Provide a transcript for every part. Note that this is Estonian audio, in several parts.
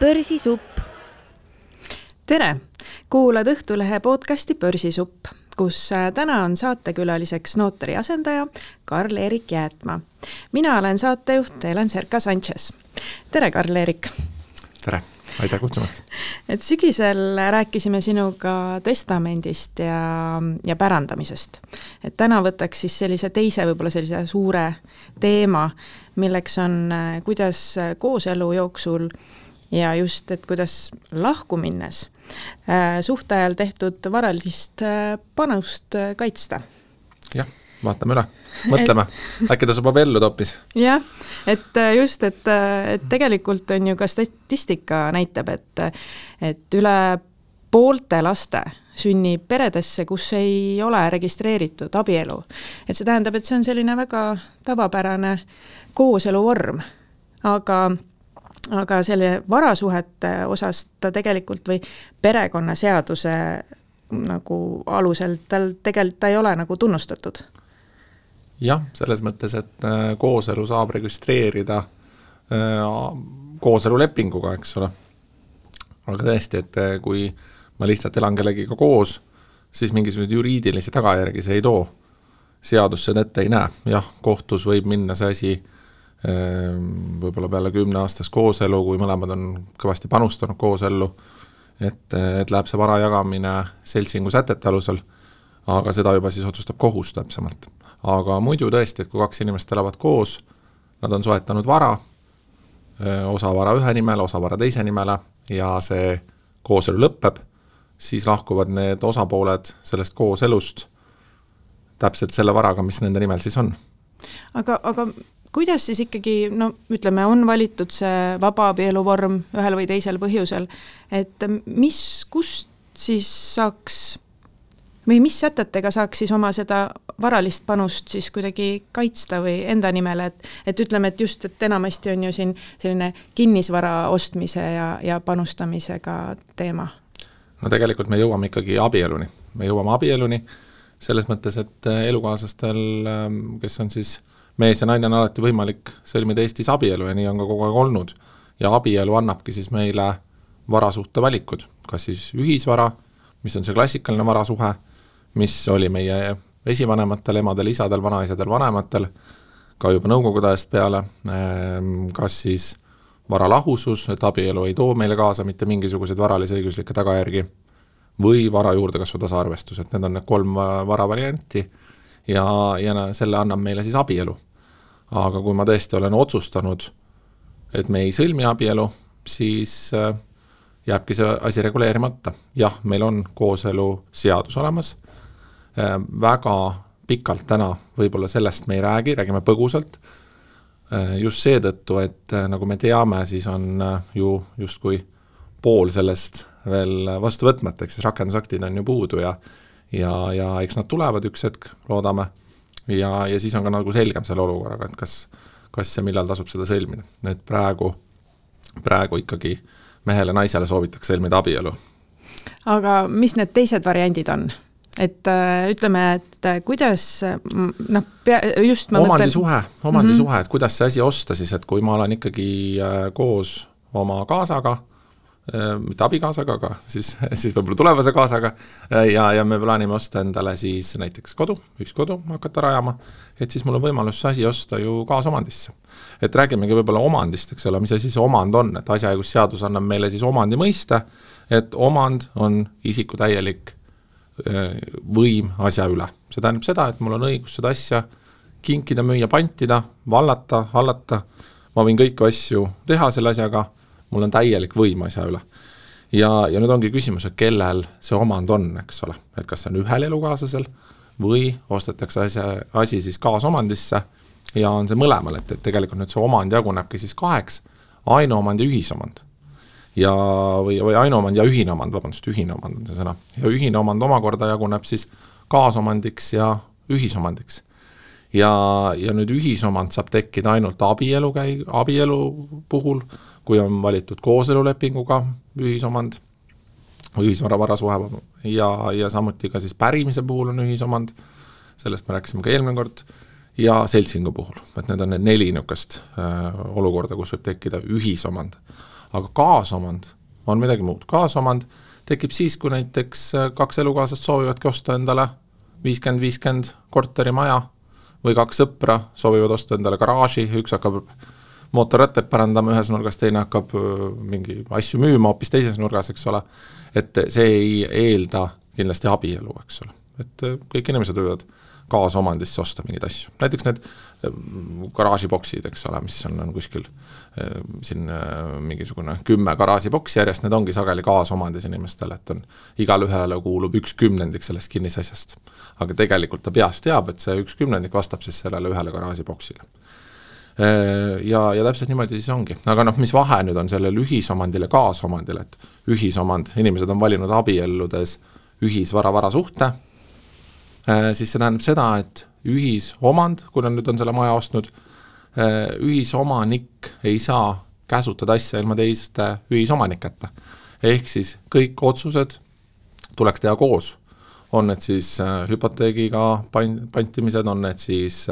Börsisupp. Tere! Kuulad Õhtulehe podcasti Börsisupp, kus täna on saatekülaliseks notari asendaja Karl-Erik Jäätma. Mina olen saatejuht Helen Serka-Sanchez. Tere, Karl-Erik! Tere! Aitäh kutsumast! Sügisel rääkisime sinuga testamendist ja pärandamisest. Täna võtaks siis sellise teise, võib-olla sellise suure teema, milleks on kuidas kooselu jooksul ja just, et kuidas lahku minnes suhteajal tehtud varalist panust kaitsta. Jah, vaatame üle. Mõtleme, äkki ta subab ellu toppis. Jah, et just, et tegelikult on ju ka statistika näitab, et üle poolte laste sünnib peredesse, kus ei ole registreeritud abielu. Et see tähendab, et see on selline väga tavapärane kooselu vorm, aga selle varasuhete osas ta tegelikult või perekonnaseaduse nagu alusel tegelikult ta ei ole nagu tunnustatud. Jah, selles mõttes, et kooselu saab registreerida kooselulepinguga, eks ole. Aga tõesti, et kui ma lihtsalt elan kellegiga koos, siis mingisugused juriidilisi tagajärgi see ei too. Seadus seda ette ei näe. Jah, kohtus võib minna see asi võib-olla peale 10 aastas kooselu, kui mõlemad on kõvasti panustanud koosellu, et läheb see vara jagamine seltsingu sätete alusel, aga seda juba siis otsustab kohus täpsemalt. Aga muidu tõesti, et kui 2 inimest elavad koos, nad on soetanud vara, osa vara ühe nimele, osa vara teise nimele ja see kooselu lõppeb, siis lahkuvad need osapooled sellest kooselust täpselt selle varaga, mis nende nimel siis on. Aga kuidas siis ikkagi, ütleme, on valitud see vaba abieluvorm ühel või teisel põhjusel, et kust siis saaks või mis sätetega saaks siis oma seda varalist panust siis kuidagi kaitsta või enda nimele, et ütleme, et just, et enamasti on ju siin selline kinnisvara ostmise ja panustamisega teema. No tegelikult me jõuame ikkagi abieluni. Me jõuame abieluni selles mõttes, et elukaaslastel, kes on siis mees ja naine, on alati võimalik sõlmida Eestis abielu ja nii on ka kogu aeg olnud. Ja abielu annabki siis meile varasuhte valikud, kas siis ühisvara, mis on see klassikaline varasuhe, mis oli meie esivanematel, emadel, isadel, vanaisadel, vanematel, ka juba nõukogude ajast peale, kas siis varalahusus, et abielu ei too meile kaasa mitte mingisuguseid varalise õiguslikke tagajärgi, või vara juurde kasvu tasaarvestus, et need on need 3 varavarianti ja selle annab meile siis abielu. Aga kui ma tõesti olen otsustanud, et me ei sõlmi abielu, siis jääbki see asi reguleerimata. Jah, meil on kooselu seadus olemas, väga pikalt täna võib-olla sellest me ei räägime põgusalt, just seetõttu, et nagu me teame, siis on ju justkui pool sellest veel vastu võtmata, eks siis rakendusaktid on ju puudu ja eks nad tulevad üks hetk, loodame, ja siis on ka nagu selgem selle olukorraga, et kas ja millal tasub seda sõlmida. Et praegu ikkagi mehele naisele soovitakse sõlmida abielu. Aga mis need teised variandid on? Et ütleme, et kuidas just ma omandisuhe, et kuidas see asi osta siis, et kui ma olen ikkagi koos oma kaasaga, mitte abikaasaga, aga siis võib-olla tulevase kaasaga ja me plaanime osta endale siis näiteks ühiskodu hakata rajama, et siis mul on võimalus see asi osta ju kaasomandisse. Et räägimegi võib-olla omandist, eks ole, mis asi see omand on, et asjaõigusseadus annab meile siis omandi mõiste, et omand on isiku täielik võim asja üle. See tähendab seda, et mul on õigus seda asja kinkida, müüa, pantida, vallata, hallata, ma võin kõiki asju teha selle asjaga, mul on täielik võim asja üle. Ja nüüd ongi küsimus, et kellel see omand on, eks ole, et kas see on ühel elukaaslasel või ostetakse asi siis kaasomandisse ja on see mõlemal, et tegelikult nüüd see omand jagunebki siis 2, ainuomand ja ühisomand. Või ainuomand ja ühine omand, ühine omand on see sõna. Ja ühine omand omakorda jaguneb siis kaasomandiks ja ühisomandiks. Ja nüüd ühisomand saab tekkida ainult abielu puhul, kui on valitud kooselulepinguga ühisomand, ühisvaravarasuhe ja samuti ka siis pärimise puhul on ühisomand, sellest me rääkisime ka eelmine kord, ja seltsingu puhul, et need on need 4 niukest olukorda, kus võib tekkida ühisomand. aga kaasomand on midagi muud. Kaasomand tekib siis, kui näiteks 2 elukaaslast soovivadki osta endale 50-50 korterimaja või 2 sõpra soovivad osta endale garaaži, üks hakkab mootorrattaid parandama ühes nurgas, teine hakkab mingi asju müüma hoopis teises nurgas, eks ole. Et see ei eelda kindlasti abielu, eks ole. Et kõik inimesed võivad kaasomandisse osta mingeid asju. Näiteks need garaažiboksid, eks ole, mis on kuskil siin mingisugune 10 garaažiboksi järjest, need ongi sageli kaasomandis inimestele, et on igal ühele kuulub 1/10 sellest kinnisasjast. Aga tegelikult ta peast teab, et see 1/10 vastab siis sellele ühele garaažiboksile. Ja täpselt niimoodi siis ongi. Aga mis vahe nüüd on sellel ühisomandile kaasomandile, et ühisomand, inimesed on valinud abielludes ühisvara suhte, siis see tähendab seda, et ühisomand, kui nüüd on selle maja ostnud, ühisomanik ei saa käsutada asja ilma teiste ühisomaniketa. Ehk siis kõik otsused tuleks teha koos. On need siis hüpoteegiga pantimised, on need siis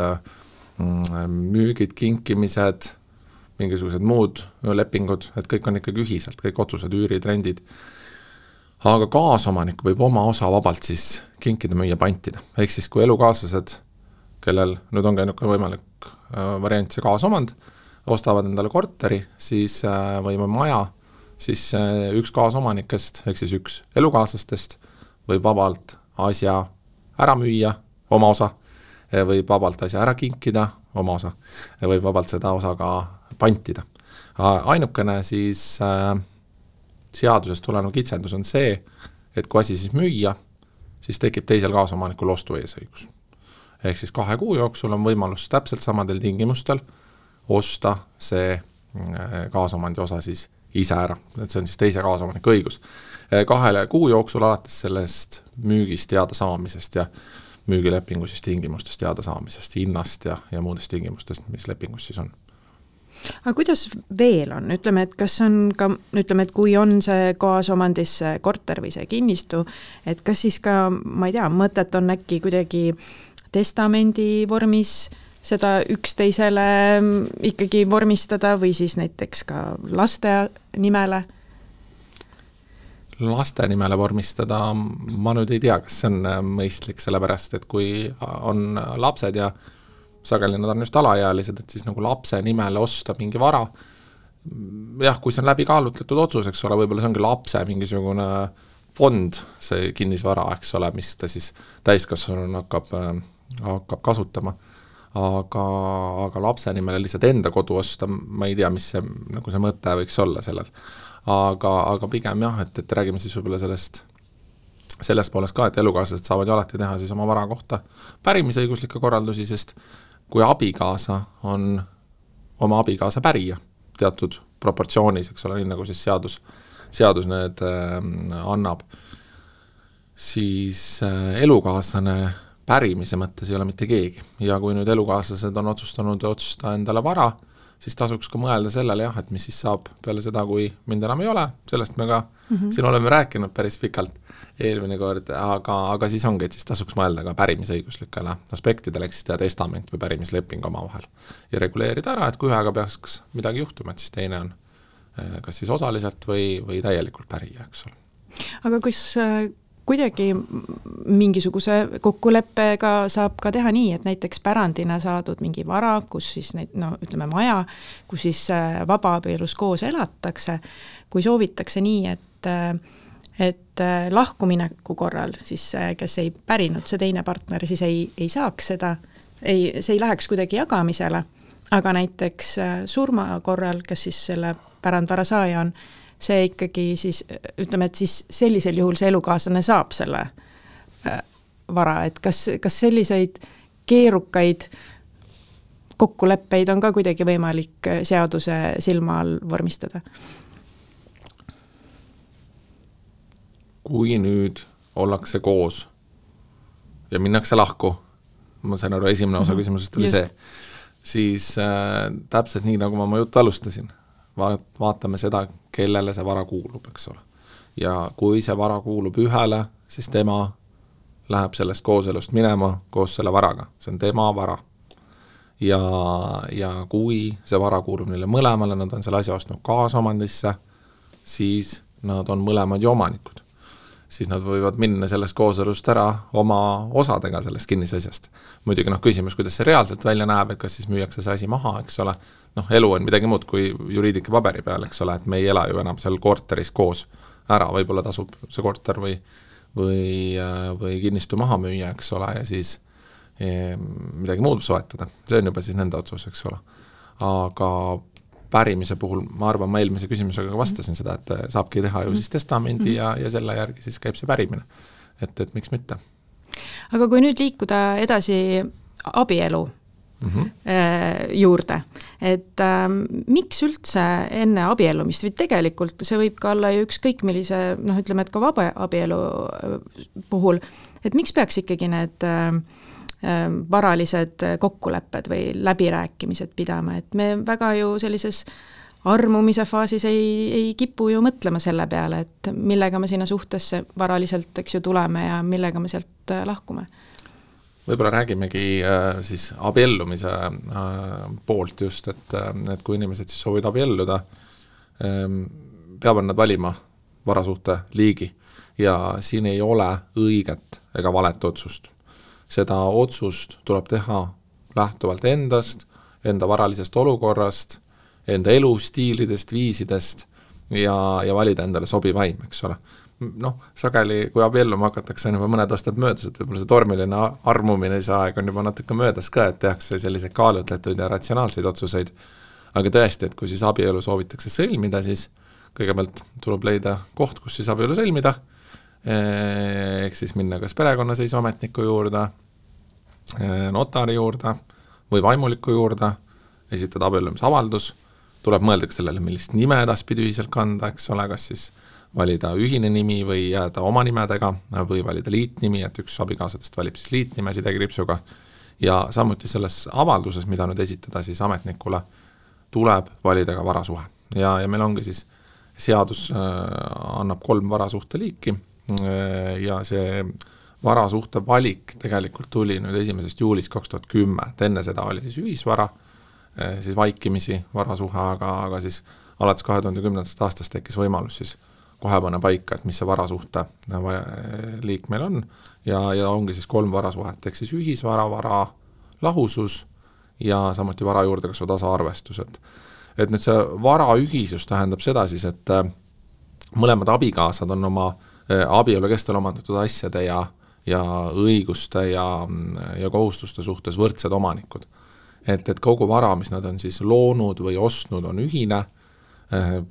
müügid, kinkimised, mingisugused muud lepingud, et kõik on ikkagi ühiselt, kõik otsused, üürid, rendid. Aga kaasomanik võib oma osa vabalt siis kinkida, müüa, pantida. Ehk siis kui elukaaslased, kellel nüüd on käinud võimalik variant see kaasomand, ostavad endale korteri, siis või maja, siis üks kaasomanikest, ehk siis üks elukaaslastest võib vabalt asja ära müüa, oma osa, võib vabalt asja ära kinkida, oma osa, võib vabalt seda osa ka pantida. Ainukene siis seadusest tulenev kitsendus on see, et kui asi siis müüa, siis tekib teisel kaasomanikul ostu eesõigus. Ehk siis 2 kuu jooksul on võimalus täpselt samadel tingimustel osta see kaasomandi osa siis ise ära, et see on siis teise kaasomaniku õigus. 2 kuu jooksul alates sellest müügist teada saamisest ja müügilepingu siis tingimustest teada saamisest, hinnast ja muudest tingimustest, mis lepingus siis on. Aga kuidas veel on? Ütleme, et kas on ka, ütleme, et kui on see kaasomandis see korter või see kinnistu, et kas siis ka, ma ei tea, mõtet on äkki kuidagi testamendi vormis seda üksteisele ikkagi vormistada või siis näiteks ka laste nimele? Laste nimele vormistada, ma nüüd ei tea, kas see on mõistlik, sellepärast, et kui on lapsed ja sageli nad on just alaealised, et siis nagu lapse nimele osta mingi vara, jah, kui see on läbi kaalutletud otsus, eks ole, võib-olla see ongi lapse mingisugune fond, see kinnisvara, eks ole, mis ta siis täiskasvanuna hakkab kasutama, aga lapse nimele lihtsalt enda kodu osta, ma ei tea, mis see, nagu see mõte võiks olla sellel. Aga pigem jah, et räägime siis võib-olla sellest poolest ka, et elukaaslased saavad ju alati teha siis oma vara kohta pärimisõiguslikke korraldusi, sest kui abikaasa on oma abikaasa pärija teatud proportsioonis, eks ole, nii nagu siis seadus need annab, siis elukaaslane pärimise mõttes ei ole mitte keegi. Ja kui nüüd elukaaslased on otsustanud otsustada endale vara, siis tasuks ka mõelda sellele jah, et mis siis saab peale seda, kui mind enam ei ole, sellest me ka siin oleme rääkinud päris pikalt eelmine kord, aga siis ongi, et siis tasuks mõelda ka pärimisõiguslikele aspektidele, eks siis teha testament või pärimisleping oma vahel ja reguleerida ära, et kui ühega peaks midagi juhtuma, et siis teine on kas siis osaliselt või täielikult pärija, eks ole. Aga kus kuidagi mingisuguse kokkuleppega saab ka teha nii, et näiteks pärandina saadud mingi vara, kus siis ütleme maja, kus siis vabaabielus koos elatakse, kui soovitakse nii, et lahkumineku korral siis kes ei pärinud see teine partner, siis ei saaks seda, see ei läheks kuidagi jagamisele, aga näiteks surma korral, kes siis selle pärandvara saaja on, see ikkagi siis, ütleme, et siis sellisel juhul see elukaaslane saab selle vara, et kas selliseid keerukaid kokkuleppeid on ka kuidagi võimalik seaduse silma all vormistada? Kui nüüd ollakse koos ja minnakse lahku, ma sain aru, esimene osa küsimusest oli see, siis täpselt nii, nagu ma oma juttu alustasin, vaatame seda, kellele see vara kuulub, eks ole. Ja kui see vara kuulub ühele, siis tema läheb sellest kooselust minema koos selle varaga. See on tema vara. Ja kui see vara kuulub neile mõlemale, nad on selle asja ostnud kaasomandisse, siis nad on mõlemad ju omanikud. Siis nad võivad minna sellest kooselust ära oma osadega sellest kinnisasjast. Muidugi küsimus, kuidas see reaalselt välja näeb, et kas siis müüakse see asi maha, eks ole. Elu on midagi muud kui juriidika paberi peal, eks ole, et me ei ela ju enam seal korteris koos ära, võib-olla tasub see korter või kinnistu maha müüa, eks ole, ja siis midagi muud soetada. See on juba siis nende otsus, eks ole. Aga pärimise puhul, ma arvan, ma eelmise küsimusega vastasin seda, et saabki teha ju siis testamendi ja selle järgi siis käib see pärimine. Et miks mitte. Aga kui nüüd liikuda edasi abielu juurde, et miks üldse enne abiellumist, või tegelikult see võib ka olla ju ükskõik millise, ütleme, et ka vaba abielu puhul, et miks peaks ikkagi need varalised kokkulepped või läbirääkimised pidama, et me väga ju sellises armumise faasis ei kipu ju mõtlema selle peale, et millega me sinna suhtesse varaliselt, eks ju, tuleme ja millega me sealt lahkume. Võib-olla räägimegi siis abiellumise poolt just, et kui inimesed siis soovid abielluda, peavad nad valima varasuhte liigi ja siin ei ole õiget ega valet otsust. Seda otsust tuleb teha lähtuvalt endast, enda varalisest olukorrast, enda elustiilidest, viisidest ja valida endale sobivaim, eks ole. Sageli, kui abielluma hakatakse, on juba mõned aastad möödas, et võib-olla see tormiline armumine see aeg on juba natuke möödas ka, et tehakse selliseid kaalutletud ja ratsionaalseid otsuseid. Aga tõesti, et kui siis abielu soovitakse sõlmida, siis kõigepealt tuleb leida koht, kus siis abielu sõlmida, ehk siis minna kas perekonnaseisuametniku juurde, notari juurde või vaimuliku juurde, esitada abiellumisavaldus, tuleb mõelda sellele, millist nime edaspidi ühiselt kanda, eks ole, kas siis valida ühine nimi või jääda oma nimedega või valida liitnimi, et üks abikaasadest valib siis liitnime sidekriipsuga ja samuti selles avalduses, mida nüüd esitada siis ametnikule, tuleb valida ka varasuhe. Ja meil ongi siis seadus annab 3 varasuhte liiki ja see varasuhte valik tegelikult tuli nüüd 1. juulist 2010, et enne seda oli siis ühisvara, siis vaikimisi varasuhe, aga siis alates 2010. aastast tekkis võimalus siis kohe panna paika, et mis see varasuhte liik meil on ja ongi siis 3 varasuhet, ehk siis ühisvara, vara lahusus ja samuti vara juurdekasvu tasaarvestus. Et nüüd see vara ühisus tähendab seda siis, et mõlemad abikaasad on oma abielu kestel omandatud asjade ja õiguste ja kohustuste suhtes võrdsed omanikud. Et kogu vara, mis nad on siis loonud või ostnud, on ühine,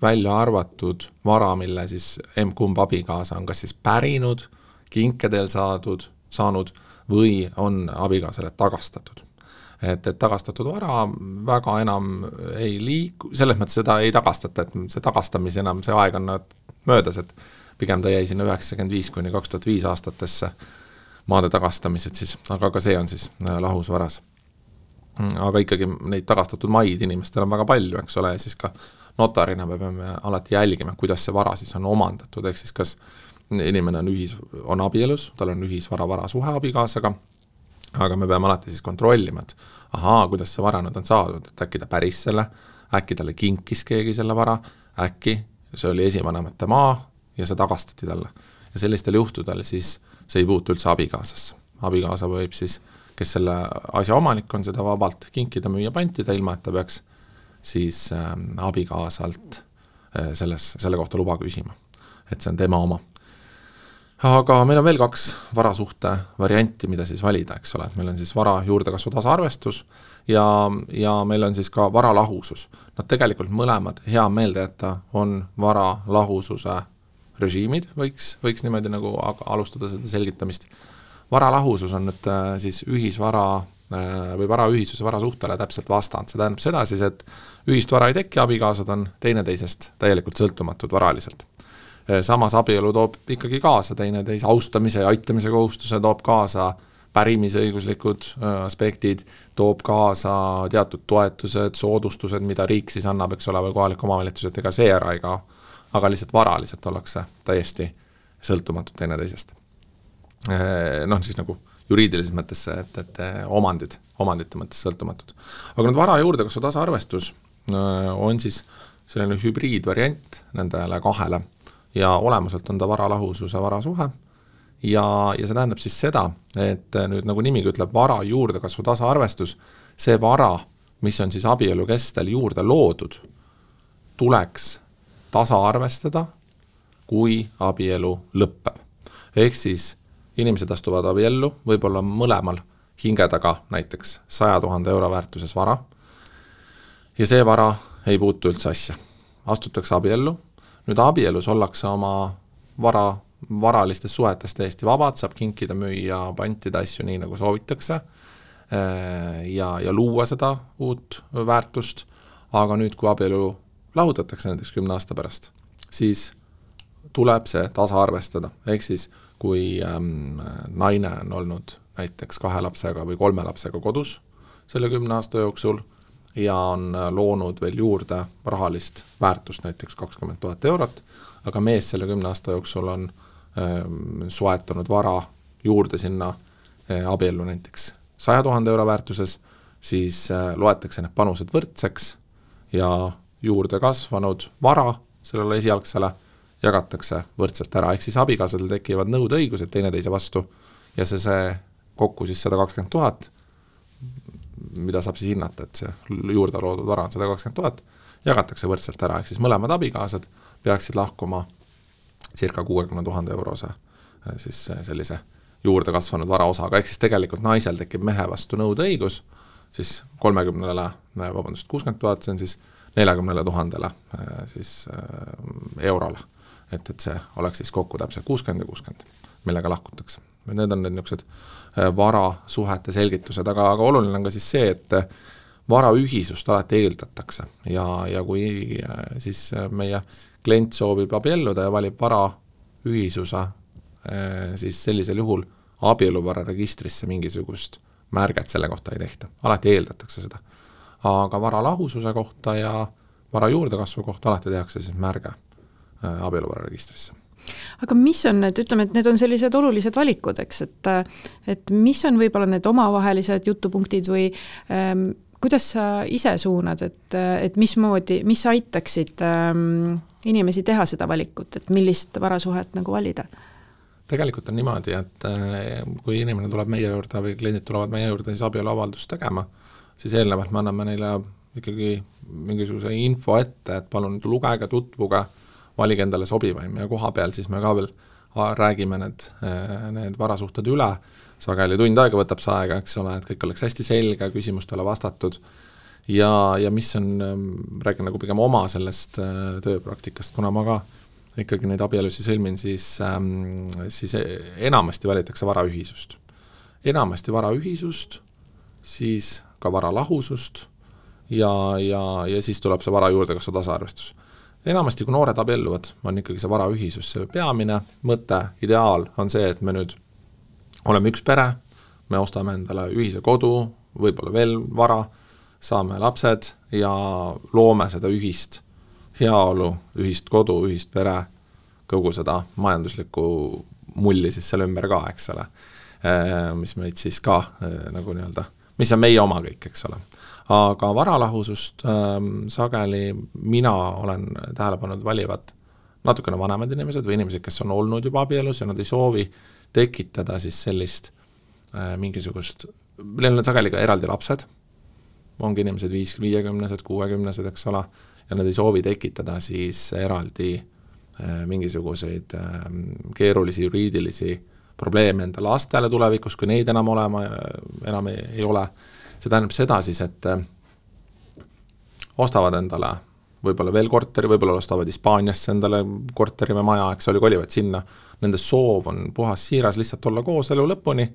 välja arvatud vara, mille siis kumb abikaasa on kas siis pärinud, kinkedel saanud või on abikaasale tagastatud. Et tagastatud vara väga enam ei liiku, selles mõttes seda ei tagastata, et see tagastamis enam, see aeg on möödas, et pigem ta jäi sinna 95–2005 aastatesse maade tagastamised siis, aga ka see on siis lahusvaras. Aga ikkagi neid tagastatud maid inimestel on väga palju, eks ole, ja siis ka notarina me peame alati jälgima, kuidas see vara siis on omandatud, ehk siis kas inimene on abielus, tal on ühisvara varasuhe abikaasaga, aga me peame alati siis kontrollima, et kuidas see vara nüüd on saadud, et äkki ta päris selle, äkki talle kinkis keegi selle vara, äkki see oli esivanemate maa ja see tagastati talle. Ja sellistel juhtudel siis see ei puutu üldse abikaasasse. Abikaasa võib siis, kes selle asja omanik on, seda vabalt kinkida, müüa, pantida, ilma et ta peaks siis abikaasalt selle kohta luba küsima. Et see on tema oma. Aga meil on veel 2 varasuhte varianti, mida siis valida, eks ole. Meil on siis vara juurdekasvu tasaarvestus ja meil on siis ka vara lahusus. Nad tegelikult mõlemad hea meelde jätta on vara lahususe režiimid, võiks niimoodi nagu alustada seda selgitamist. Vara lahusus on nüüd siis ühisvara või vara ühisus ja varasuhtele täpselt vastand. See tähendab seda siis, et ühist vara ei teki, abikaasad on teineteisest täielikult sõltumatud varaliselt. Samas abielu toob ikkagi kaasa teineteise austamise ja aitamise kohustuse, toob kaasa pärimisõiguslikud aspektid, toob kaasa teatud toetused, soodustused, mida riik siis annab, eks ole, või kohalik omavalitsus, et ega see ära ei kao, aga lihtsalt varaliselt ollakse täiesti sõltumatud teineteisest. Siis nagu juriidilises mõttes, et omandite mõttes sõltumatud. Aga nüüd vara juurdekasvu tasaarvestus on siis selline hübriidvariant nendele kahele ja olemuselt on ta varalahususe varasuhe ja see tähendab siis seda, et nüüd nagu nimigi ütleb, vara juurdekasvu tasaarvestus, see vara, mis on siis abielu kestel juurde loodud, tuleks tasaarvestada, kui abielu lõppeb. Ehk siis inimesed astuvad abiellu, võib-olla mõlemal hinge taga näiteks 100 000 euro väärtuses vara ja see vara ei puutu üldse asja. Astutakse abiellu, nüüd abielus ollakse oma varalistes suhetes täiesti vabad, saab kinkida, müüa, pantida asju nii, nagu soovitakse ja luua seda uut väärtust, aga nüüd, kui abielu lahutatakse näiteks 10 aasta pärast, siis tuleb see tasaarvestada. Ehk siis, kui naine on olnud näiteks 2 lapsega või 3 lapsega kodus selle 10 aasta jooksul ja on loonud veel juurde rahalist väärtust näiteks 20 000 eurot, aga mees selle 10 aasta jooksul on soetanud vara juurde sinna abiellu näiteks 100 000 euro väärtuses, siis loetakse need panused võrdseks ja juurde kasvanud vara sellele esialgsele jagatakse võrdselt ära, ehk siis abikaasadel tekivad nõudeõigused teineteise vastu ja see kokku siis 120 000, mida saab siis hinnata, et see juurde loodud vara on 120 000, jagatakse võrdselt ära, ehk siis mõlemad abikaasad peaksid lahkuma circa 60 000 eurose siis sellise juurde kasvanud varaosaga, ehk siis tegelikult naisel tekib mehe vastu nõudeõigus, siis 60 000, see on siis 40 000 siis eurole, et see oleks siis kokku täpselt 60 ja 60, millega lahkutakse. Need on need niisugused varasuhete selgitused, aga oluline on ka siis see, et varaühisust alati eeldatakse ja kui siis meie klient soovib abielluda ja valib varaühisuse, siis sellisel juhul abieluvara registrisse mingisugust märget selle kohta ei tehta, alati eeldatakse seda. Aga varalahususe kohta ja vara juurdekasvu kohta alati tehakse siis märge abieluvara registrisse. Aga mis on need, ütleme, et need on sellised olulised valikud, eks, et mis on võib-olla need omavahelised jutupunktid või kuidas sa ise suunad, et mis aitaksid inimesi teha seda valikut, et millist varasuhet nagu valida? Tegelikult on niimoodi, et kui inimene tuleb meie juurde või kliendid tulevad meie juurde siis abieluavaldust tegema, siis eelnevalt me anname neile ikkagi mingisuguse info ette, et palun lugege, tutvuge, valige endale sobivaim ja koha peal siis me ka veel räägime need varasuhted üle, sageli tund aega võtab see aega, eks ole, et kõik oleks hästi selge, küsimustele vastatud ja mis on, räägin nagu pigem oma sellest tööpraktikast, kuna ma ka ikkagi neid abielusi sõlmin, siis enamasti valitakse varaühisust. Enamasti varaühisust, siis ka varalahusust ja siis tuleb see vara juurdekasvu tasaarvestus. Enamasti, kui noored abielluvad, on ikkagi see varaühisus see peamine mõte, ideaal on see, et me nüüd oleme üks pere, me ostame endale ühise kodu, võib-olla veel vara, saame lapsed ja loome seda ühist heaolu, ühist kodu, ühist pere, kogu seda majanduslikku mulli siis selle ümber ka, eks ole, mis meid siis ka nagu nii-öelda, mis on meie oma kõik, eks ole. Aga varalahusust sageli mina olen tähelepanud valivad natukene vanemad inimesed või inimesed, kes on olnud juba abielus ja nad ei soovi tekitada siis sellist mingisugust, neil on sageli ka eraldi lapsed, ongi inimesed 50-sed, 60-sed, eks ole, ja nad ei soovi tekitada siis eraldi mingisuguseid keerulisi juriidilisi probleeme enda lastele tulevikus, kui neid enam ei ole. See tähendab seda siis, et ostavad endale võib-olla veel korteri, võib-olla ostavad Hispaaniasse endale korteri või maja, eks oli, kolivad sinna. Nende soov on puhas siiras lihtsalt olla koos elu lõpuni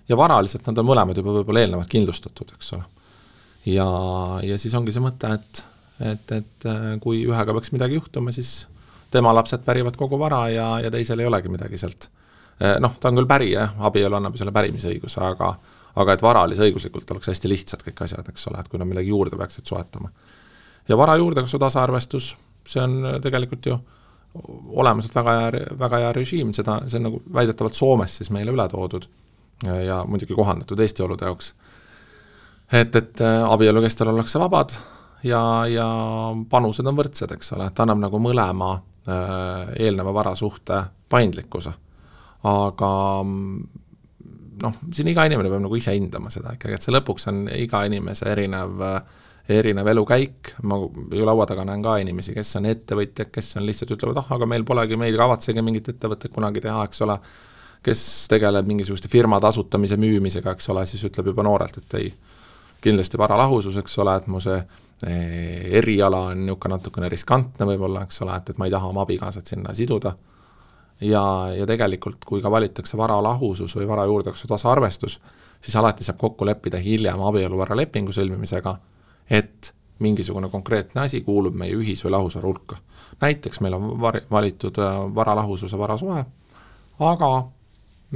ja varaliselt nad on mõlemad juba võib-olla eelnevalt kindlustatud, eks ole. Ja siis ongi see mõte, et kui ühega peaks midagi juhtuma, siis tema lapsed pärivad kogu vara ja teisel ei olegi midagi sealt. Ta on küll pärija, abielu annab selle pärimisõiguse, aga et varalise õiguslikult oleks hästi lihtsad kõik asjad, eks ole, et kui nad midagi juurde peaksid soetama. Ja vara juurdekasvu tasaarvestus, see on tegelikult ju olemuselt väga hea režiim, see on nagu väidetavalt Soomes siis meile üle toodud ja muidugi kohandatud Eesti olude jaoks. Et abielu kestel ollakse vabad ja panused on võrdsed, eks ole, et annab nagu mõlema eelneva varasuhte paindlikkuse. Aga siin iga inimene peab nagu ise hindama seda ikkagi, et see lõpuks on iga inimese erinev elukäik. Ma ju laua taga näen ka inimesi, kes on ettevõtjad, kes on lihtsalt ütlevad, aga meil polegi, meil kavatsegi mingit ettevõtet kunagi teha, eks ole, kes tegeleb mingisuguste firmade asutamise müümisega, eks ole, siis ütleb juba noorelt, et ei, kindlasti varalahusus, eks ole, et mu see eriala on niisugune natukene riskantne võib-olla, eks ole, et ma ei taha oma abikaasat sinna siduda. Ja tegelikult, kui ka valitakse varalahusus või vara juurdekasvu tasaarvestus, siis alati saab kokku leppida hiljem abieluvaralepingu sõlmimisega, et mingisugune konkreetne asi kuulub meie ühis- või lahusvara hulka. Näiteks meil on valitud varalahususe varasuhe, aga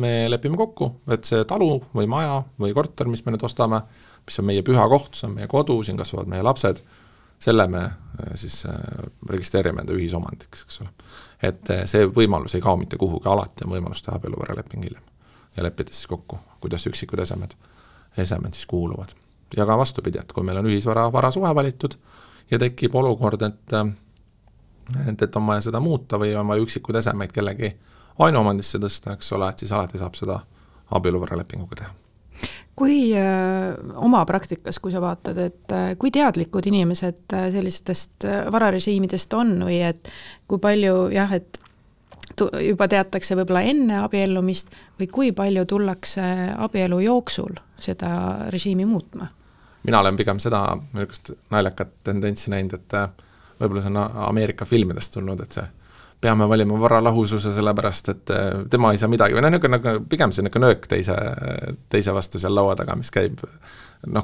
me lepime kokku, et see talu või maja või korter, mis me nüüd ostame, mis on meie püha koht, see on meie kodu, siin kasvavad meie lapsed, selle me siis registreerime enda ühisomandiks, eks ole. Et see võimalus ei kao mitte kuhugi, alati on võimalus teha abieluvaraleping hiljem ja leppida siis kokku, kuidas üksikud esemed siis kuuluvad. Ja ka vastupidi, et kui meil on varasuhe valitud ja tekib olukord, et on vaja seda muuta või on vaja üksikud esemeid kellegi ainuomandisse tõsta, eks ole, et siis alati saab seda abieluvaralepinguga teha. Kui oma praktikas, kui sa vaatad, et kui teadlikud inimesed sellistest vararežiimidest on või et kui palju et juba teatakse võib-olla enne abiellumist või kui palju tullakse abielu jooksul seda režiimi muutma? Mina olen pigem seda naljakat tendentsi näinud, et võib-olla see on Ameerika filmidest tulnud, et see peame valima varalahususe sellepärast, et tema ei saa midagi, või pigem see nöök teise vastu seal laua taga, mis käib,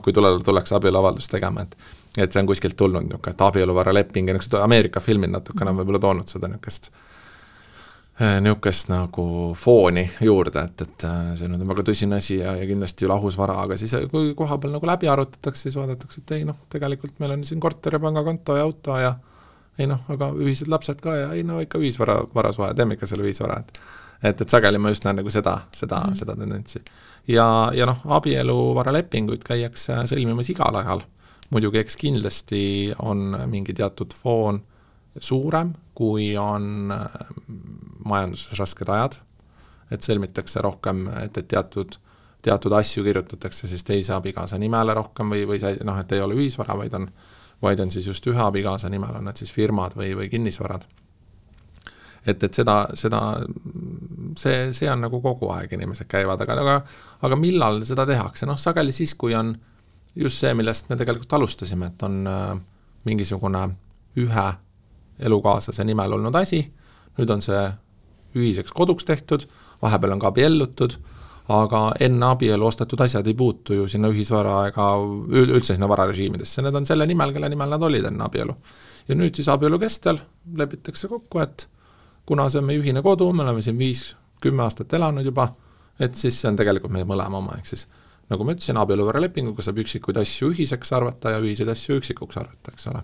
kui tullakse abieluavaldust tegema, et see on kuskilt tulnud, et abieluvaraleping ja Ameerika filmid natukene on võib-olla toonud seda niisugust nagu fooni juurde, et see on väga tõsine asi ja kindlasti lahusvara, aga siis kui koha peal nagu läbi arutatakse, siis vaadatakse, et ei tegelikult meil on siin korter ja pangakonto ja auto ja aga ühised lapsed ka ja ikka ühisvarasuhe, teeme ikka selle ühisvara, et sageli ma just näen nagu seda tendentsi. Ja abieluvaralepinguid käiakse sõlmimas igal ajal. Muidugi eks kindlasti on mingi teatud foon suurem, kui on majanduses rasked ajad, et sõlmitakse rohkem, et teatud asju kirjutatakse siis teise abikaasa nimele rohkem või et ei ole ühisvara, vaid on siis just ühe abikaasa nimel, on need siis firmad või kinnisvarad. Et see on nagu kogu aeg inimesed käivad, aga millal seda tehakse? Sageli siis, kui on just see, millest me tegelikult alustasime, et on mingisugune ühe elukaaslase nimel olnud asi, nüüd on see ühiseks koduks tehtud, vahepeal on ka abiellutud, aga enne abielu ostetud asjad ei puutu ju sinna ühisvara ega üldse sinna vararežiimidesse. Need on selle nimel, kelle nimel nad olid enne abielu. Ja nüüd siis abielu kestel lepitakse kokku, et kuna see on meie ühine kodu, me oleme siin 5-10 aastat elanud juba, et siis see on tegelikult meie mõlema oma. Ehk siis, nagu ma ütlesin, abieluvaralepinguga saab üksikuid asju ühiseks arvata ja ühiseid asju üksikuks arvata, eks ole.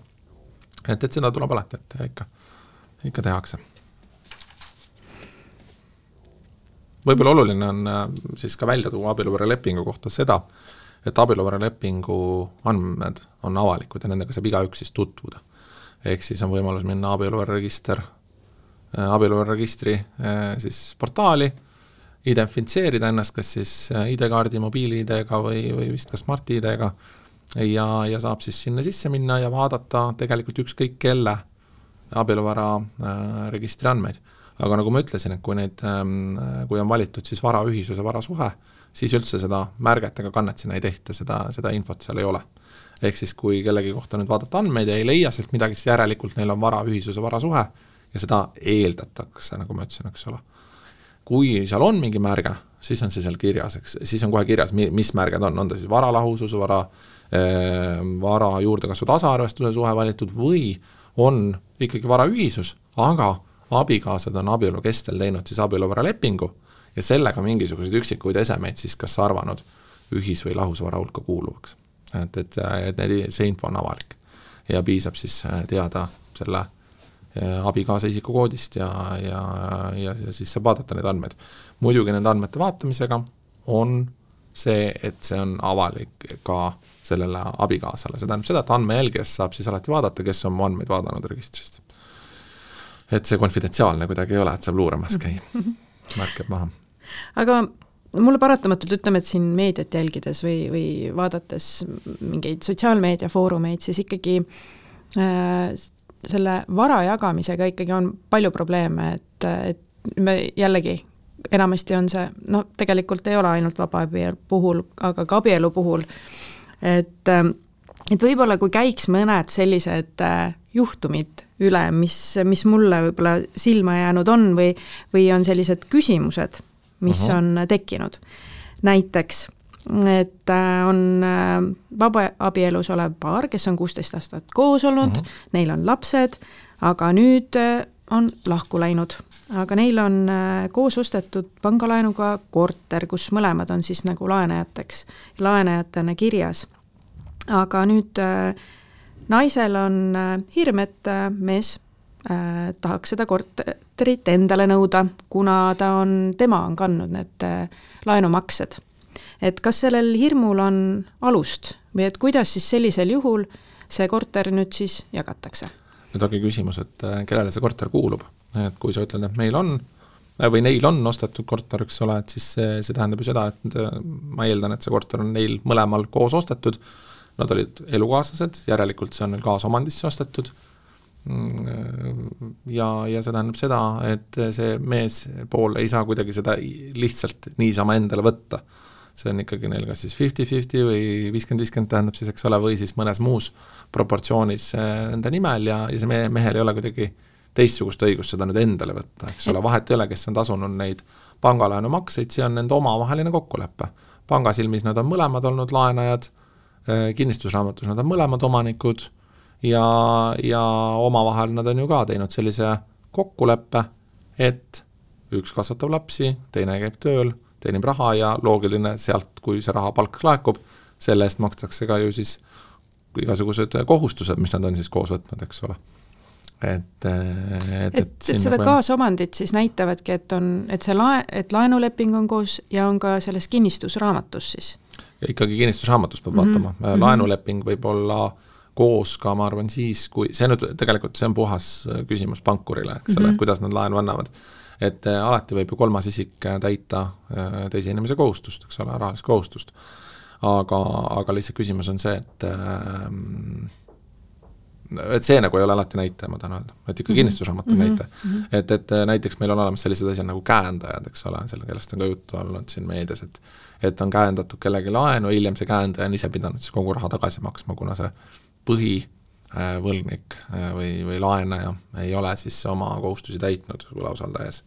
Et seda tuleb alati, et ikka tehakse. Võib-olla oluline on siis ka välja tuua abieluvaralepingu kohta seda, et abieluvaralepingu andmed on avalikud ja nendega saab igaüks siis tutvuda. Ehk siis on võimalus minna abieluvararegistri siis portaali, identifitseerida ennast kas siis ID-kaardi, mobiili-ID-ga või vist ka Smart-ID-ga ja saab siis sinna sisse minna ja vaadata tegelikult ükskõik kelle abieluvara registri andmeid. Aga nagu ma ütlesin, et kui on valitud siis varaühisus ja varasuhe, siis üldse seda märget ega kannet sinna ei tehta, seda infot seal ei ole. Ehk siis kui kellegi kohta nüüd vaadata andmeid ja ei leia sealt midagi, siis järelikult neil on varaühisus ja varasuhe ja seda eeldatakse, nagu ma ütlesin, eks ole. Kui seal on mingi märge, siis on see seal kirjas, siis on kohe kirjas, mis märged on ta siis varalahusus, vara juurdekasvu tasaarvestuse suhe valitud või on ikkagi varaühisus, aga abikaasad on abielu kestel teinud siis abieluvaralepingu ja sellega mingisuguseid üksikuid esemeid siis kas arvanud ühis- või lahusvara hulka kuuluvaks. Et see info on avalik ja piisab siis teada selle abikaasa isikukoodist ja siis saab vaadata neid andmeid. Muidugi nende andmete vaatamisega on see, et see on avalik ka sellele abikaasale. See tähendab seda, et andmejälgijast saab siis alati vaadata, kes on mu andmeid vaadanud registrist. Et see konfidentsiaalne kuidagi ei ole, et saab luuramas käia. Märkab maha. Aga mulle paratamatult ütleme, et siin meediat jälgides või vaadates mingeid sotsiaalmeediafoorumeid, siis ikkagi selle vara jagamisega ikkagi on palju probleeme, et me jällegi enamasti on see, tegelikult ei ole ainult vabaabielu puhul, aga ka abielu puhul, et võib-olla kui käiks mõned sellised juhtumid üle, mis mulle võib-olla silma jäänud on või on sellised küsimused, mis on tekkinud. Näiteks, et on vabaabielus olev paar, kes on 16 aastat koos olnud, neil on lapsed, aga nüüd on lahku läinud. Aga neil on koos ostetud pangalaenuga korter, kus mõlemad on siis nagu laenajatena kirjas. Aga nüüd naisel on hirm, et mees tahaks seda korterit endale nõuda, kuna tema on kandnud need laenumaksed. Et kas sellel hirmul on alust või et kuidas siis sellisel juhul see korter nüüd siis jagatakse? Nüüd ongi küsimus, et kellele see korter kuulub. Et kui sa ütled, et meil on või neil on ostetud korter, eks ole, et siis see tähendab ju seda, et ma eeldan, et see korter on neil mõlemal koos ostetud. Nad olid elukaaslased, järelikult see on neil kaasomandisse ostetud. Ja see tähendab seda, et see mees pool ei saa kuidagi seda lihtsalt niisama endale võtta. See on ikkagi neil kas siis 50-50 või 50-50 tähendab siis, eks ole, või siis mõnes muus proportsioonis nende nimel ja see mehel ei ole kuidagi teistsugust õigust seda nüüd endale võtta, eks ole, vahet ei ole, kes on tasunud neid pangalaenu makseid, see on nende omavaheline kokkulepe. Pangasilmis nad on mõlemad olnud laenajad, kinnistusraamatus nad on mõlemad omanikud ja omavahel nad on ju ka teinud sellise kokkuleppe, et üks kasvatab lapsi, teine käib tööl, teenib raha ja loogiline sealt, kui see raha palk laekub, selle eest makstakse ka ju siis igasugused kohustused, mis nad on siis koos võtnud, eks ole. Et seda kaasomandit siis näitavadki, et laenuleping on koos ja on ka selles kinnistusraamatus siis? Ja ikkagi kinnistusraamatus peab vaatama. Laenuleping võib olla koos ka, ma arvan, siis, kui see nüüd tegelikult see on puhas küsimus pankurile, eks ole, kuidas nad laenu annavad. Et alati võib ju kolmas isik täita teise inimese kohustust, eks ole, rahalist kohustust. Aga lihtsalt küsimus on see, et see nagu ei ole alati näite, ma tahan öelda, et ikka kinnistusraamat on näite. Et näiteks meil on olemas sellised asjad nagu käendajad, eks ole, selle kellest on ka juttu olnud siin meedias, et on käendatud kellegi laenu, hiljem see käendaja on ise pidanud siis kogu raha tagasi maksma, kuna see põhivõlgnik või laenaja ei ole siis oma kohustusi täitnud võlausaldajas.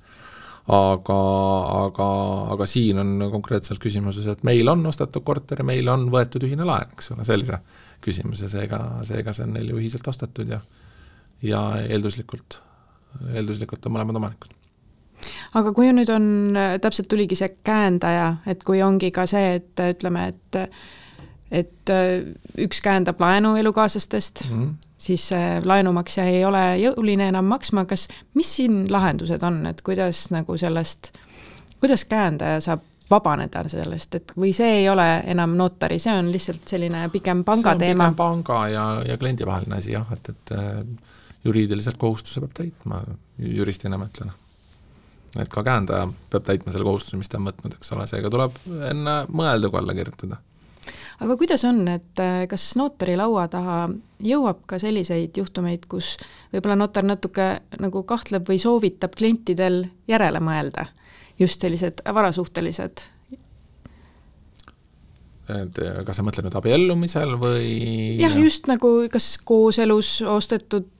Aga siin on konkreetselt küsimuses, et meil on ostetud korteri, meil on võetud ühine laen, eks ole, sellise küsimuse, seega see on neil ju ühiselt ostetud ja eelduslikult on mõlemad omanikud. Aga kui nüüd on, täpselt tuligi see käendaja, et kui ongi ka see, et ütleme, et üks käendab laenu elukaaslastest, siis laenumaksja ei ole jõuline enam maksma, mis siin lahendused on, et kuidas nagu kuidas käendaja saab vabaneda sellest, et või see ei ole enam notari, see on lihtsalt selline pigem panga teema? See on pigem panga ja kliendi vaheline asi, jah, et juriidiliselt kohustuse peab täitma, juristina ma ütlen. Et ka käendaja peab täitma selle kohustuse, mis ta on võtnud, eks ole, seega tuleb enne mõelda, kui alla kirjutada. Aga kuidas on, et kas notari laua taha jõuab ka selliseid juhtumeid, kus võib-olla notar natuke nagu kahtleb või soovitab klientidel järele mõelda? Just sellised varasuhtelised. Kas sa mõtled nüüd abiellumisel või? Jah, just nagu kas kooselus ostetud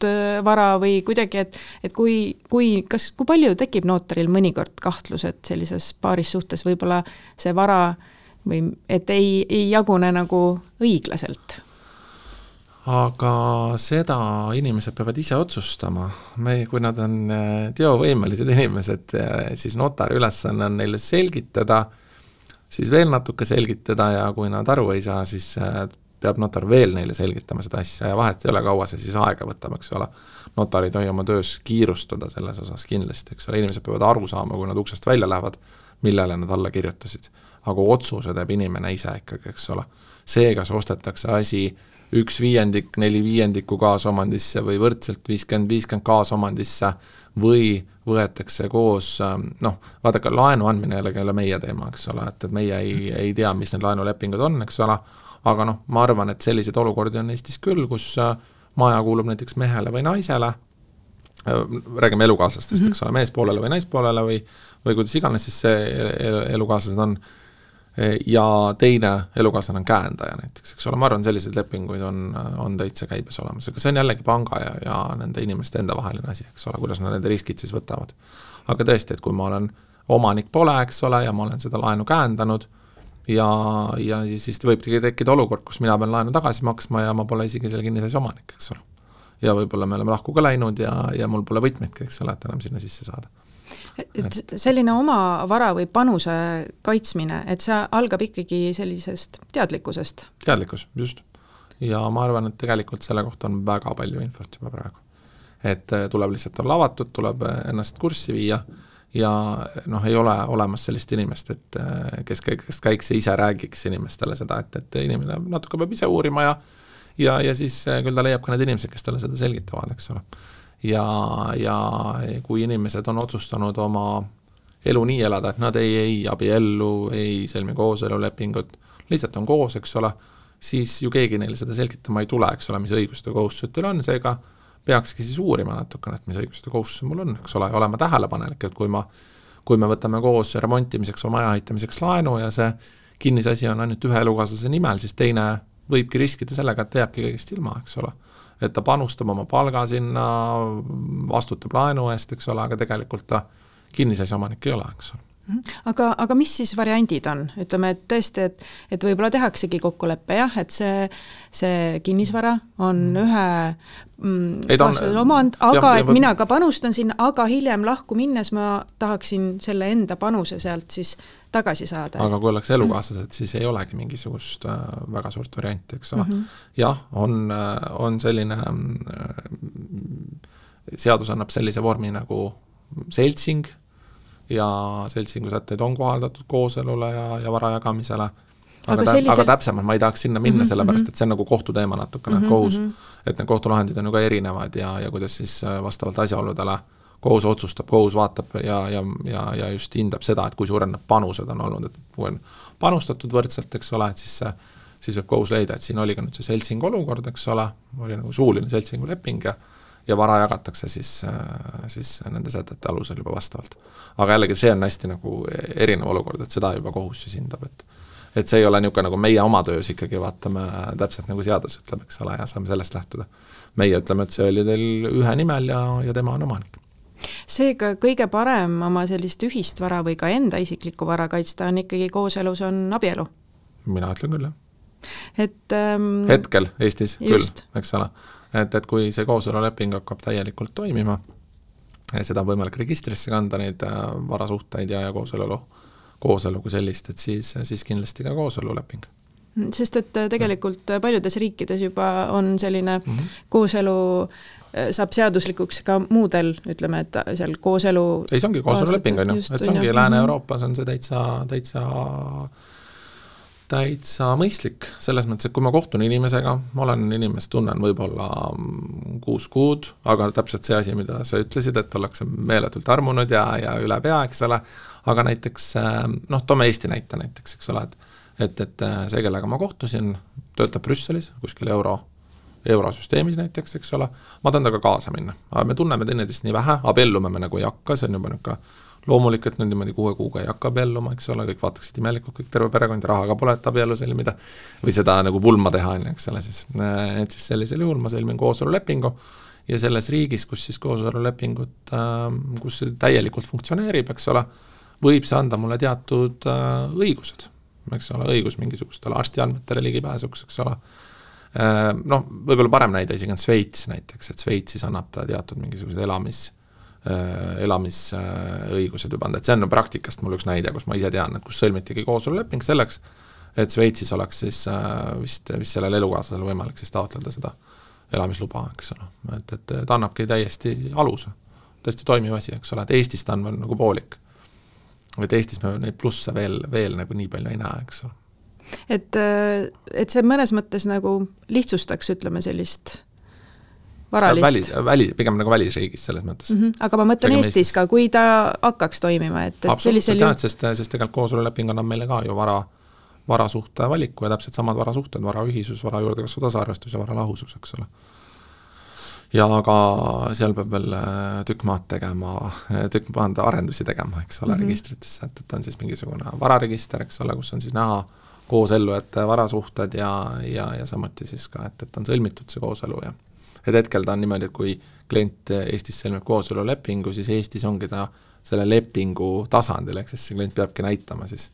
vara või kuidagi, et kui palju tekib notaril mõnikord kahtlus, et sellises paaris suhtes võib-olla see vara või et ei jagune nagu õiglaselt? Aga seda inimesed peavad ise otsustama. Kui nad on teovõimelised inimesed, siis notari ülesanne on neile selgitada, siis veel natuke selgitada ja kui nad aru ei saa, siis peab notar veel neile selgitama seda asja ja vahet ei ole kaua see siis aega võtab, eks ole. Notari tohi oma töös kiirustada selles osas kindlasti, eks ole. Inimesed peavad aru saama, kui nad uksest välja lähevad, millele nad alla kirjutasid. aga otsuse teeb inimene ise ikkagi, eks ole. See, kas ostetakse asi 1/5, 4/5 kaasomandisse või võrdselt 50-50 kaasomandisse või võetakse koos, vaadake, laenu andmine jällegi ei ole meie teema, eks ole, et meie ei tea, mis need laenulepingud on, eks ole, aga ma arvan, et selliseid olukordi on Eestis küll, kus maja kuulub näiteks mehele või naisele, räägime elukaaslastest, eks ole, meespoolele või naispoolele või kuidas iganes siis see elukaaslased on, ja teine elukaaslane on käendaja näiteks, eks ole, ma arvan, selliseid lepinguid on täitsa käibes olemas, aga see on jällegi panga ja nende inimeste enda vaheline asi, eks ole, kuidas nad nende riskid siis võtavad. Aga tõesti, et kui ma olen omanik pole, eks ole, ja ma olen seda laenu käendanud ja siis võibki tekkida olukord, kus mina pean laenu tagasi maksma ja ma pole isegi selle kinnisasja omanik, eks ole. Ja võib-olla me oleme lahku ka läinud ja mul pole võtmeidki, eks ole, et enam sinna sisse saada. Et selline oma vara või panuse kaitsmine, et see algab ikkagi sellisest teadlikkusest. Teadlikkus, just. Ja ma arvan, et tegelikult selle kohta on väga palju infot juba praegu. Et tuleb lihtsalt olla avatud, tuleb ennast kurssi viia ja ei ole olemas sellist inimest, et kes käiks ja ise räägiks inimestele seda, et inimene natuke peab ise uurima ja siis küll ta leiab ka need inimesed, kes talle seda selgitavad, eks ole. Ja kui inimesed on otsustanud oma elu nii elada, et nad ei abiellu, ei sõlmi kooselulepingut, lihtsalt on koos, eks ole, siis ju keegi neile seda selgitama ei tule, eks ole, mis õigused ja kohustused teil on, seega peakski siis uurima natukene, et mis õigused ja kohustused mul on, eks ole, ja olema tähelepanelik, et kui me võtame koos remontimiseks või maja ehitamiseks laenu ja see kinnisasi on ainult ühe elukaaslase nimel, siis teine võibki riskida sellega, et jääbki kõigest ilma, eks ole. Et ta panustab oma palga sinna, vastutab laenu eest, eks ole, aga tegelikult ta kinnisasja omanik ei ole, eks ole. Aga mis siis variandid on? Ütleme, et tõesti, et võib-olla tehaksegi kokkuleppe, jah, et see kinnisvara on ühe omand, aga et mina ka panustan sinna, aga hiljem lahku minnes ma tahaksin selle enda panuse sealt siis tagasi saada. Aga kui oleks elukaaslased, siis ei olegi mingisugust väga suurt varianti, eks ole. Jah, on selline, seadus annab sellise vormi nagu seltsing, ja seltsingu sätteid on kohaldatud kooselule ja vara jagamisele. Aga täpsemalt ma ei tahaks sinna minna, sellepärast, et see on nagu kohtuteema natukene, kohus, et need kohtulahendid on ju ka erinevad ja kuidas siis vastavalt asjaoludele kohus otsustab, kohus vaatab ja just hindab seda, et kui suured need panused on olnud, et kui on panustatud võrdselt, eks ole, et siis võib kohus leida, et siin oli ka nüüd see seltsing olukord, eks ole, oli nagu suuline seltsingu leping ja vara jagatakse siis nende sätete alusel juba vastavalt. Aga jällegi see on hästi nagu erinev olukord, et seda juba kohus siis hindab, et see ei ole niisugune nagu meie oma töös ikkagi vaatame täpselt nagu seadus ütleb, eks ole, ja saame sellest lähtuda. Meie ütleme, et see oli teil ühe nimel ja tema on omanik. Seega kõige parem oma sellist ühist vara või ka enda isiklikku vara kaitsta on ikkagi kooselus on abielu? Mina ütlen küll, jah. Hetkel Eestis just. Küll, eks ole. Et kui see kooseluleping hakkab täielikult toimima, seda on võimalik registrisse kanda, neid varasuhteid ja kooselu kui sellist, et siis kindlasti ka kooseluleping. Sest et tegelikult paljudes riikides juba on selline kooselu saab seaduslikuks ka muudel, ütleme, et seal kooselu... Ei, see ongi kooseluleping, on ju. Et see ongi Lääne-Euroopas on see täitsa mõistlik, selles mõttes, et kui ma kohtun inimesega, ma olen inimest tunnen võib-olla 6 kuud, aga täpselt see asi, mida sa ütlesid, et ollakse meeletult armunud ja üle pea, eks ole, aga näiteks, toome Eesti näite näiteks, eks ole, et see, kellega ma kohtusin, töötab Brüsselis, kuskil eurosüsteemis näiteks, eks ole, ma tahan taga kaasa minna, aga me tunneme teineteist nii vähe, abiellume me nagu ei hakka, see on juba niisugune loomulik, et niimoodi 6 kuuga ei hakka abielluma, eks ole, kõik vaataksid imelikult, kõik terve perekond, rahaga pole, et abiellu sõlmida või seda nagu pulma teha, eks ole, et siis sellisel juhul ma sõlmin kooselulepingu ja selles riigis, kus siis kooselulepingut, kus see täielikult funktsioneerib, eks ole, võib see anda mulle teatud õigused, eks ole, õigus mingisugustele arstiandmetele ligipääsuks, eks ole. Võib-olla parem näide isegi on Sveits näiteks, et Sveitsis annab ta teatud mingisugused elamisõigused juba anda, et see on praktikast mul üks näide, kus ma ise tean, et kus sõlmitigi kooseluleping selleks, et Sveitsis oleks siis vist sellel elukaaslasel võimalik siis taotleda seda elamisluba, eks ole, et ta annabki täiesti aluse, tõesti toimiv asi, eks ole, et Eestis ta on nagu poolik. et Eestis me neid plusse veel nagu nii palju ei näe, eks ole. Et see mõnes mõttes nagu lihtsustaks, ütleme, sellist varalist. Pigem nagu välisriigis selles mõttes. Aga ma mõtlen Eestis ka, kui ta hakkaks toimima, et absoluutselt jah, sest tegelikult kooseluleping annab meile ka ju varasuhte valiku ja täpselt samad varasuhted, varaühisus, vara juurdekasvu tasaarvestus ja varalahusus, eks ole. Ja aga seal peab veel tükk maad arendusi tegema, eks ole, registritesse, et on siis mingisugune vararegister, eks ole, kus on siis näha koosellujate varasuhted ja samuti siis ka, et on sõlmitud see kooselu ja et hetkel ta on niimoodi, et kui klient Eestis sõlmib kooselulepingu, siis Eestis ongi ta selle lepingu tasandil, ehk siis see klient peabki näitama siis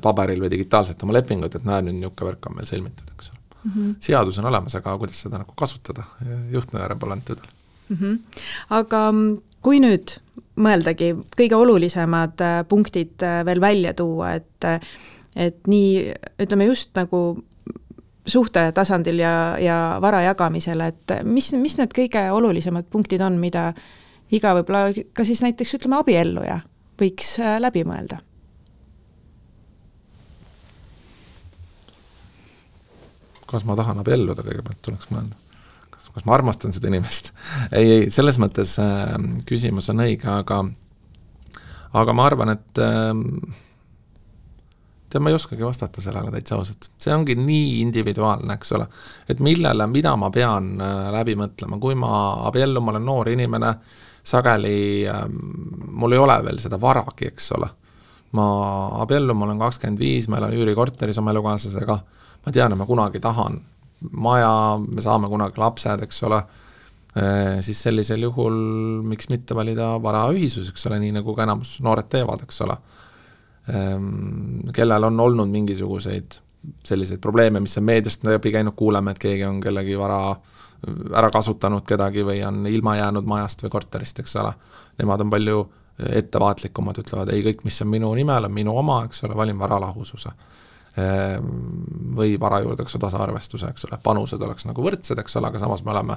paberil või digitaalselt oma lepingut, et näe, nüüd niuke värk on meil sõlmitud, eks ole. Seadus on olemas, aga kuidas seda nagu kasutada, juhtnööre pole antudel. Aga kui nüüd mõeldagi kõige olulisemad punktid veel välja tuua, et nii, ütleme just nagu suhte tasandil ja vara jagamisel, et mis need kõige olulisemad punktid on, mida iga võib-olla ka siis näiteks, ütleme, abielluja võiks läbi mõelda? Kas ma tahan abielluda, kõigepealt tuleks mõelda? Kas ma armastan seda inimest? Ei, selles mõttes küsimus on õige, aga ma arvan, et ma ei oskagi vastata sellele täitsa ausalt. See ongi nii individuaalne, eks ole, et mida ma pean läbi mõtlema. Kui ma abiellun, ma olen noor inimene, sageli mul ei ole veel seda varagi, eks ole. Ma abiellun, ma olen 25, ma elan üürikorteris oma elukaaslasega, ma tean, et ma kunagi tahan maja, me saame kunagi lapsed, eks ole, siis sellisel juhul miks mitte valida varaühisus, eks ole, nii nagu ka enamus noored teevad, eks ole. Kellel on olnud mingisuguseid selliseid probleeme, mis on meediast läbi käinud, kuuleme, et keegi on kellegi vara ära kasutanud kedagi või on ilma jäänud majast või korterist, eks ole. Nemad on palju ettevaatlikumad, ütlevad, ei, kõik, mis on minu nimel, on minu oma, eks ole, valin varalahususe või vara juurdekasvu tasaarvestuse, eks ole, panused oleks nagu võrdsed, eks ole, aga samas me oleme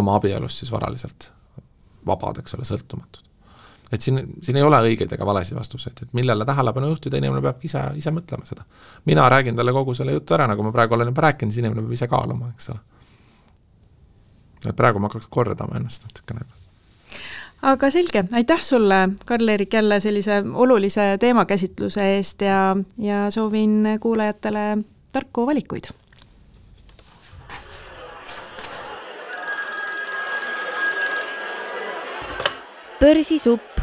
oma abielus siis varaliselt vabad, eks ole, sõltumatud. Et siin ei ole õigeid ega valesi vastuseid, et millele tähelepanu juhtida, inimene peab ise mõtlema seda. Mina räägin talle kogu selle jutu ära, nagu ma praegu olen juba rääkinud, siis inimene peab ise kaaluma, eks ole. Et praegu ma hakkaks kordama ennast natukene. Aga selge, aitäh sulle, Karl-Erik, jälle sellise olulise teemakäsitluse eest ja soovin kuulajatele tarku valikuid. Börsisupp